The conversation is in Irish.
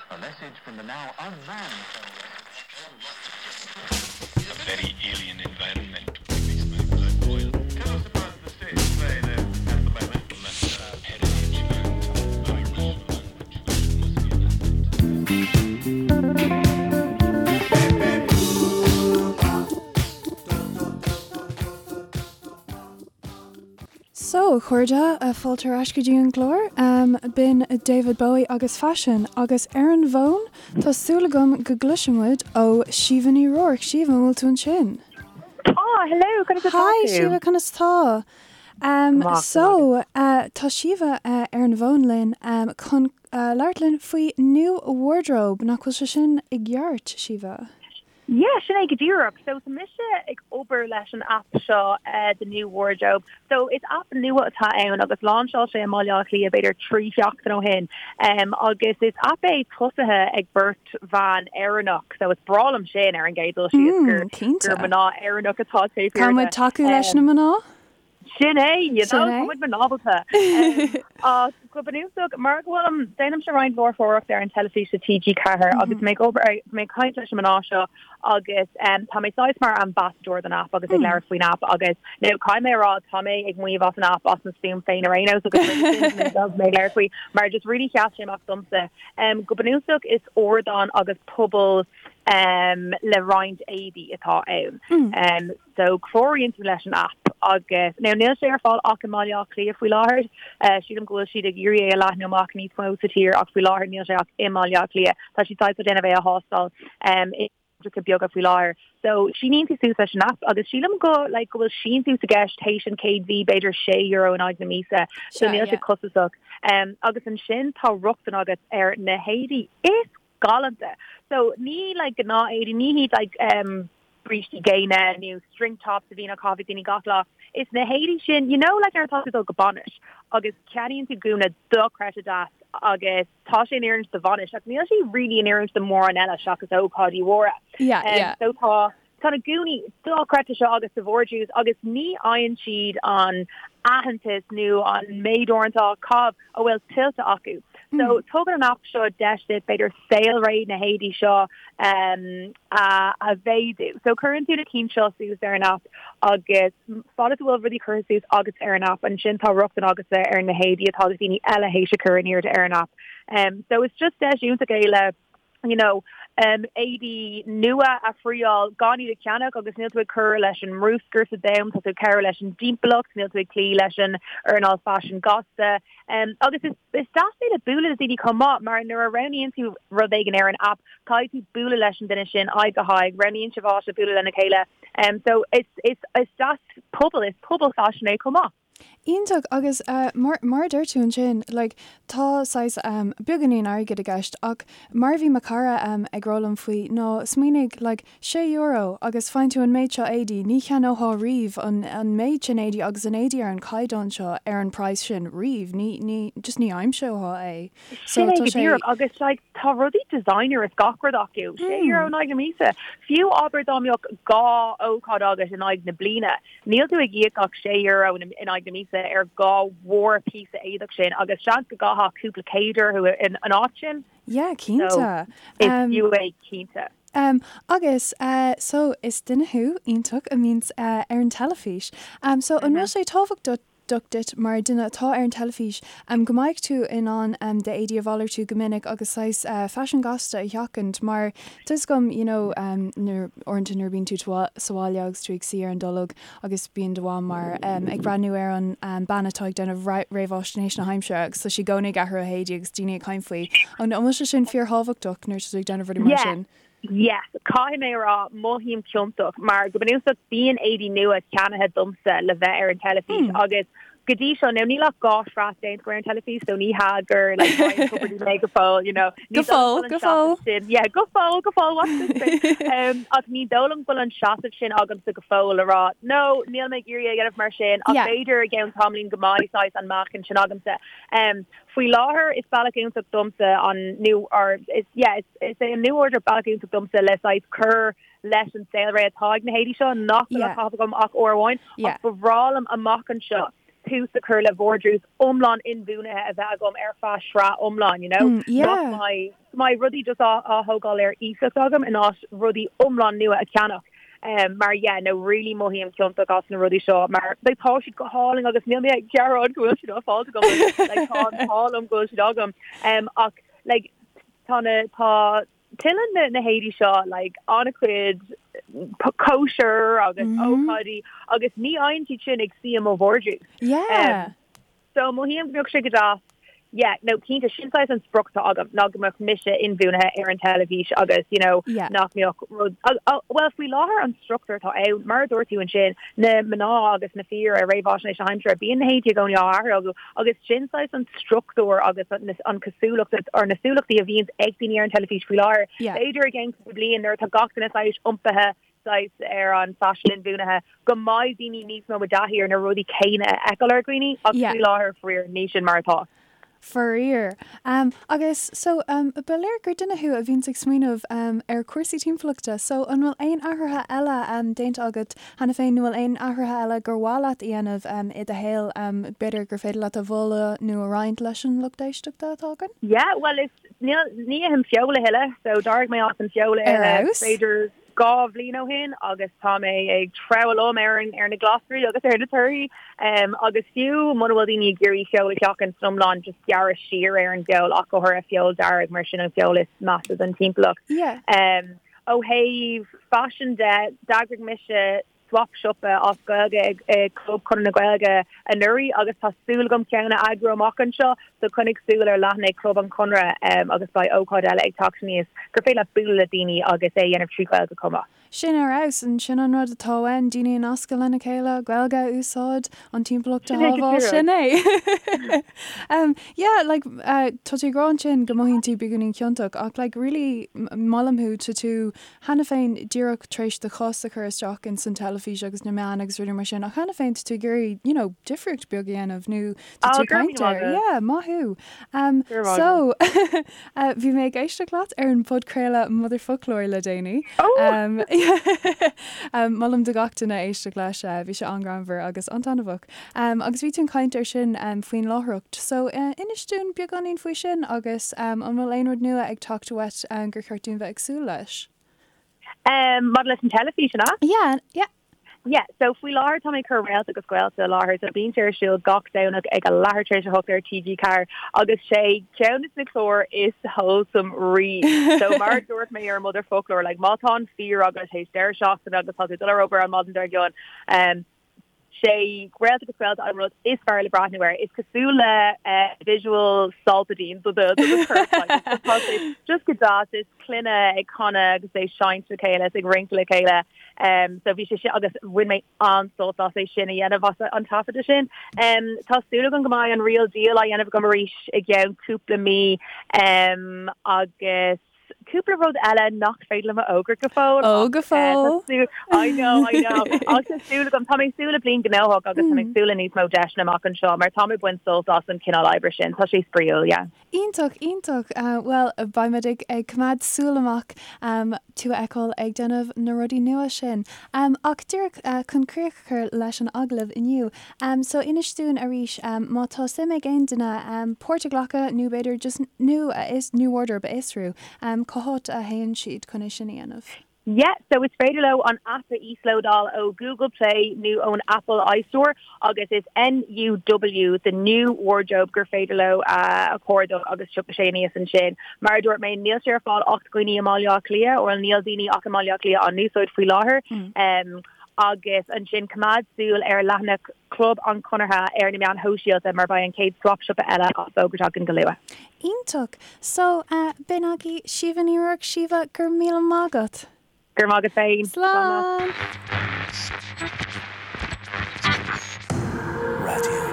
A message from the now unmanned A very alien environment makes my blood boil. Tell us about the state of play then at the moment. Heritage and Irish language must be an asset. So, a chairde, fáilte ar ais go dtí an gclár. B'in David Bowie agus Faisean, agus ar an bhfón, tá súil agam go gcloisfidh muid ó Síomha Ní Ruairc. Síomha, an bhfuil tú ansin? Tá, hello, conas atá tú? Hi, Síomha, conas tá? Maith, So, tá Síomha ar an bhfón linn chun labhairt linn faoi New Wardrobe, nach bhfuil sé sin i gceart, Síomha? Yeah, sin é go díreach. So tá mise ag obair leis an aip seo, The New Wardrobe. So is aip nua atá ann agus láinseáil sé i mBaile Átha Cliath b'fhéidir 3 sheachtain ó shin. Agus is aip é tosaithe ag beirt bhan Éireannach. So is breá liom sin ar an gcéad dul síos gur Cinnte. gur mná Éireannach atá taobh thiar Tá de. muid tacú leis na mná? Sin é, you Sin know, é. tá muid mnábalta. Ach go bunúsach, mar go bhfuilim, déanaimse roinnt láithreoireacht ar an teilifís do TG4 agus mé ag obair, mé ag caint leis na mná seo agus tá mé saghas mar ambassador don aip agus ag labhairt faoin aip agus now caithfidh mé a rá tá mé ag maíomh as an aip as mo stuaim féin ar aon nós agus mé ag labhairt faoi mar just really sheas sé amach domsa. Go bunúsach is ardán agus pobal le roinnt éadaí atá ann. So cláraíonn tú leis an aip agus, now níl sé ar fáil ach i mBaile Átha Cliath faoi láthair. Sílim go bhfuil siad ag iarraidh é a leathnú amach níos mó sa tír ach faoi láthair níl sé ach i mBaile Átha Cliath. Tá siad saghas ag déanamh é a thástáil i gcathracha beaga faoi láthair. So síníonn tú suas leis an aip agus sílim go like go bhfuil síntiús i gceist théis an chéad mhí b'fhéidir €6 in aghaidh na míosa. So Sea, níl sé yeah. costasach. Agus ansin tá rochtain agat ar na héadaí is galánta. So ní like gnáth éadaí, ní hiad like um brístí géine nó string tops a bhíonn á caitheamh ag daoine gach lá. Is na héadaí sin, you know like nuair atá tú ag dul go bainis agus ceannaíonn tú gúna dochreidte deas agus tá sé in oiriúint do bhainis ach níl sé really in oiriúint do mórán eile seachas ócáidí mhóra. Yeah, Um, yeah. so tá Tá na gúnaí dochreidte seo agus sa vardrús agus ní fhaigheann siad an aitheantas nó an méid uaireanta á caitheamh a bhfuil tuillte acu. So tugann an aip seo deis duit b'fhéidir saolré na héadaí seo a a mhéadú. So cuireann tú na cinn seo suas ar an aip agus fad is a bhfuil rudaí curtha suas agat ar an aip ansin tá rochtain agatsa ar na héadaí atá daoine eile théis a chur in airde ar an aip. So it's just deis iontach é le you know, éadaí nua a thriáil gan iad a cheannach agus níl tú ag cur leis an mbruscar sa domhan, tá tú ag cabhrú leis an dtimpeallacht, níl tú ag cloí leis an earnáil faisin gasta. Agus is is deas é le bualadh le daoine chomh maith mar nuair a roghnaíonn tú rud éigin ar an aip, caithfidh tú bualadh leis an duine sin aghaidh go haghaidh, roghnaíonn sibh áit le bualadh lena chéile. So is is is deas pobal, is pobal faisin é chomh maith. Iontach agus mar mar a deir tú ansin like tá saghas beagáinín airgid i gceist ach mar a bhí mo chara ag rá liom faoi ná smaoinigh like €6 agus faigheann tú an méid seo éadaí, ní cheannófá riamh an an méid sin éadaí agus an éadaí ar an chaighdeán seo ar an praghas sin riamh, ní ní just ní aimseofá é. So Sin é go díreach agus like tá rudaí designer is gach rud acu, €6 in aghaidh na míosa. Fiú abair dá mbeadh 2 ócáid agat in aghaidh na bliana, Níl tú ag íoc ach €6 in aghaidh na míosa ar 2 mhórphíosa éadach sin agus seans go gcaithfeá cúpla céad orthu in áit sin. Yeah, cinnte. So, is fiú é cinnte. Um, agus, uh, so, is duine thú iontach a mbíonns uh, ar an teilifís. Um, so, an bhfuil sé tábhachtach duit mar duine atá ar an teilifís um, go mbeidh tú in ann um, d'éadaí a mhalartú go minic agus saghas uh, faisean gasta a sheachaint mar Tá 'fhios agam, you know, nuair, uaireanta nuair a bíonn tú sa bhaile agus tú ag suí ar an dtolg agus bíonn do mham mar ag breathnú ar an bean atá ag déanamh réamháisnéis na haimsire agus tá sí i gcónaí ag athrú a héadaí agus daoine ag caint faoi. An bhfuil sé sin fíorthábhachtach nuair atá tú ag déanamh rudaí mar Yeah. sin? Yes, caithfidh mé a rá, mothaím ciontach mar go bunúsach bíonn éadaí nua ceannaithe domsa le bheith ar an teilifís agus Go dtí seo, now níl ach 2 shraith déanta agam ar an teilifís, so ní hea gur like Ryan Tubridy mé go fóill, you know. Go Ní dóigh liom fóill, go bhfuil an go fóill. seasamh sin, yeah, go fóill, go fóill, watch this space. Um, ach ní dóigh liom go bhfuil an seasamh sin agamsa go fóill le rá, no, níl mé ag iarraidh é a dhéanamh mar sin, ach Yeah. b'fhéidir i gceann tamaillín go mbeidh saghas an meáchan sin agamsa. Um, faoi láthair is bealach iontach domsa an new, or is, yeah, is, is é an New Wardrobe bealach iontach domsa le saghas cur leis an saolré atá ag na héadaí seo nach bhfuil á Yeah. caitheamh agam ach uair amháin, Yeah. ach ba bhreá liom amach anseo. tús a chur le vardrús iomlán inbhuanaithe a bheith agam ar feadh sraith iomlán, you know? Nach mbeidh, go mbeidh rudaí just á á thógáil ar iasacht agam in áit rudaí iomlán nua a cheannach. Mar yeah, no really mothaím ciontach as na rudaí seo mar like tá siad go hálainn agus níl mé ag gearán go bhfuil siad á fáilt agam like tá an t-ádh liom go bhfuil siad agam. Ach like tá na tá tuilleann na na héadaí seo like an-chuid cóisir agus ócáidí agus ní fhaigheann siad sin ag suí i mo vardrús. Yeah. So mothaím go mbeadh sé go deas yeah no cinnte sin saghas an sprioc atá agam ná go mbeadh mise inbhuanaithe ar an teilifís agus you know Yeah. nach mbeadh rud bhuel faoi láthair an struchtúr atá ann mar a dúirt tú ansin na mná agus na fir ar réamhaisnéis na haimsire bíonn na héadaí i gcónaí á athrú acu Agus sin saghas an struchtúr agus an cosúlacht or na cosúlachtaí a bhíonns ag daoine ar an teilifís faoi láthair. B'fhéidir i gceann cúpla bliain nuair atá gach duine saghas iompaithe saghas ar an faisean inbhuanaithe go mbeidh daoine níos mó i dtaithí ar na rudaí céanna a fheiceáil ar dhaoine ach faoi láthair faraor ní sin mar atá. Faraor. Agus so ba léir gur duine thú a bhíonns ag smaoineamh ar chúrsaí timpeallachta so an bhfuil aon athruithe eile déanta agat cheana féin nó bhfuil aon athruithe eile gur mhaith leat a dhéanamh i do shaol b'fhéidir gur féidir leat a mholadh nó a roinnt leis an lucht éisteachta atá againn? Yeah, bhuel is níl ní ithim feoil a thuilleadh so d'éirigh mé as an feoil a Ar ithe fheabhas. b'fhéidir 2 bhliain ó shin agus tá mé ag treabhadh liom ar an ar na glasraí agus ar na torthaí agus fiú muna bhfuil daoine ag iarraidh feoil a sheachaint san iomlán just gearradh siar ar an bhfeoil ach go háirithe feoil dearg mar sin an feoil is measa don timpeallacht. Yeah. Ó thaobh faisin de, d'eagraigh mise swap siopa as Gaeilge ag Club Chonradh na Gaeilge anuraidh agus tá súil agam ceann a eagrú amach anseo so coinnigh súil ar leathanaigh Chlub an Chonradh agus beidh ócáid eile ag teacht aníos gur féidir leat bualadh le daoine agus é a dhéanamh trí Ghaeilge chomh maith. Sin ar fheabhas, and sin an rud atá uainn, daoine a nascadh lena chéile, Gaeilge a úsáid, an timpeallacht a Sin é go shábháil, díreach. sin é! Yeah, like, tá tú ag rá ansin go mothaíonn tú beagáinín ciontach ach like really molaim thú, tá tú cheana féin díreach tar éis do chos a chur isteach ins an teilifís agus na meáin agus rudaí mar sin ach cheana féin tá tú ag iarraidh, you know, difríocht beag a dhéanamh nó tá Oh, tú ag go raibh caint míle air. maith agat. Yeah, maith thú. Um, Go raibh maith so, uh, bhí mé ag éisteacht leat ar an podchraoladh Motherfoclóir le déanaí. Oh! Um, um, molaim do gach duine éisteacht leis, uh, bhí sé an-ghreannmhar agus an-taitneamhach. Um, agus bhí tú ag caint ar sin um, faoin láithreacht. So, uh, inis dúinn beagáinín faoi sin agus um, an bhfuil aon rud nua ag teacht uait um, gur cheart dúinn bheith ag súil leis? Um, maidir leis an teilifís, an ea? Yeah, yeah. Yeah, so faoi láthair tá mé ag cur Réalta agus Gaolta i láthair, so bíonn sé ar siúl gach Domhnach ag a leathuair tar éis a hocht ar TG4 agus sé ceann de na cláir is wholesome riamh. So mar a dúirt mé ar Motherfoclóir, like má tá an fear agat théis deireadh seachtaine agus tá tú ag dul ar obair an maidin dár gcionn, um, sé Réalta agus Gaolta an rud is fearr le breathnú air. Is cosúil le visual Solpadeine do do do chorp like tá sé just go deas is clainne ag canadh agus ag seinnt le chéile is ag rince le chéile. Um, so bhí sé sin agus bhain mé an-sult as é sin a dhéanamh as an taifeadadh sin. Um, tá súil agam go mbeidh an Real Deal á dhéanamh agam arís i gceann cúpla mí um, agus Cúpla rud eile nach féidir liom a fhógairt go fóill. Ó, go ach, eh, tá fóill. súil- I know, I know. Ach tá súil agam, tá mé ag súil le bliain gnóthach agus tá mé ag súil le níos mó deiseanna amach anseo mar tá mé ag baint sult as an cineál oibre sin. Tá sé spraíúil, yeah. Iontach, iontach. Bhuel, beidh muid ag ag coimeád súil amach tú a fheiceáil ag déanamh na rudaí nua sin. Ach díreach chun críoch a chur leis an agallamh inniu, so inis dúinn arís má tá suim ag aon duine páirt a ghlacadh nó b'fhéidir just new a new wardrobe a fhiosrú, cá háit a théann siad chun é sin a dhéanamh? Yeah, so is féidir leo an aip a íoslódáil ó Google Play nó ón Apple iStore agus is NUW, the new wardrobe, gur féidir leo a chuardach agus tiocfaidh sé aníos ansin. Mar a dúirt mé, níl sé ar fáil ach do dhaoine i mBaile Átha Cliath, or níl daoine ach i mBaile Átha Cliath á n-úsáid faoi láthair. Agus ansin coimeád súil ar leathanach Chlub an Chonartha ar na meáin shóisialta mar beidh an chéad Swap Siopa eile á fógairt againn go luath. Iontach! So, b'in agaibh Síomha Ní Ruairc. Síomha, go raibh míle maith agat! Go raibh maith agat féin. Slán! Raidió.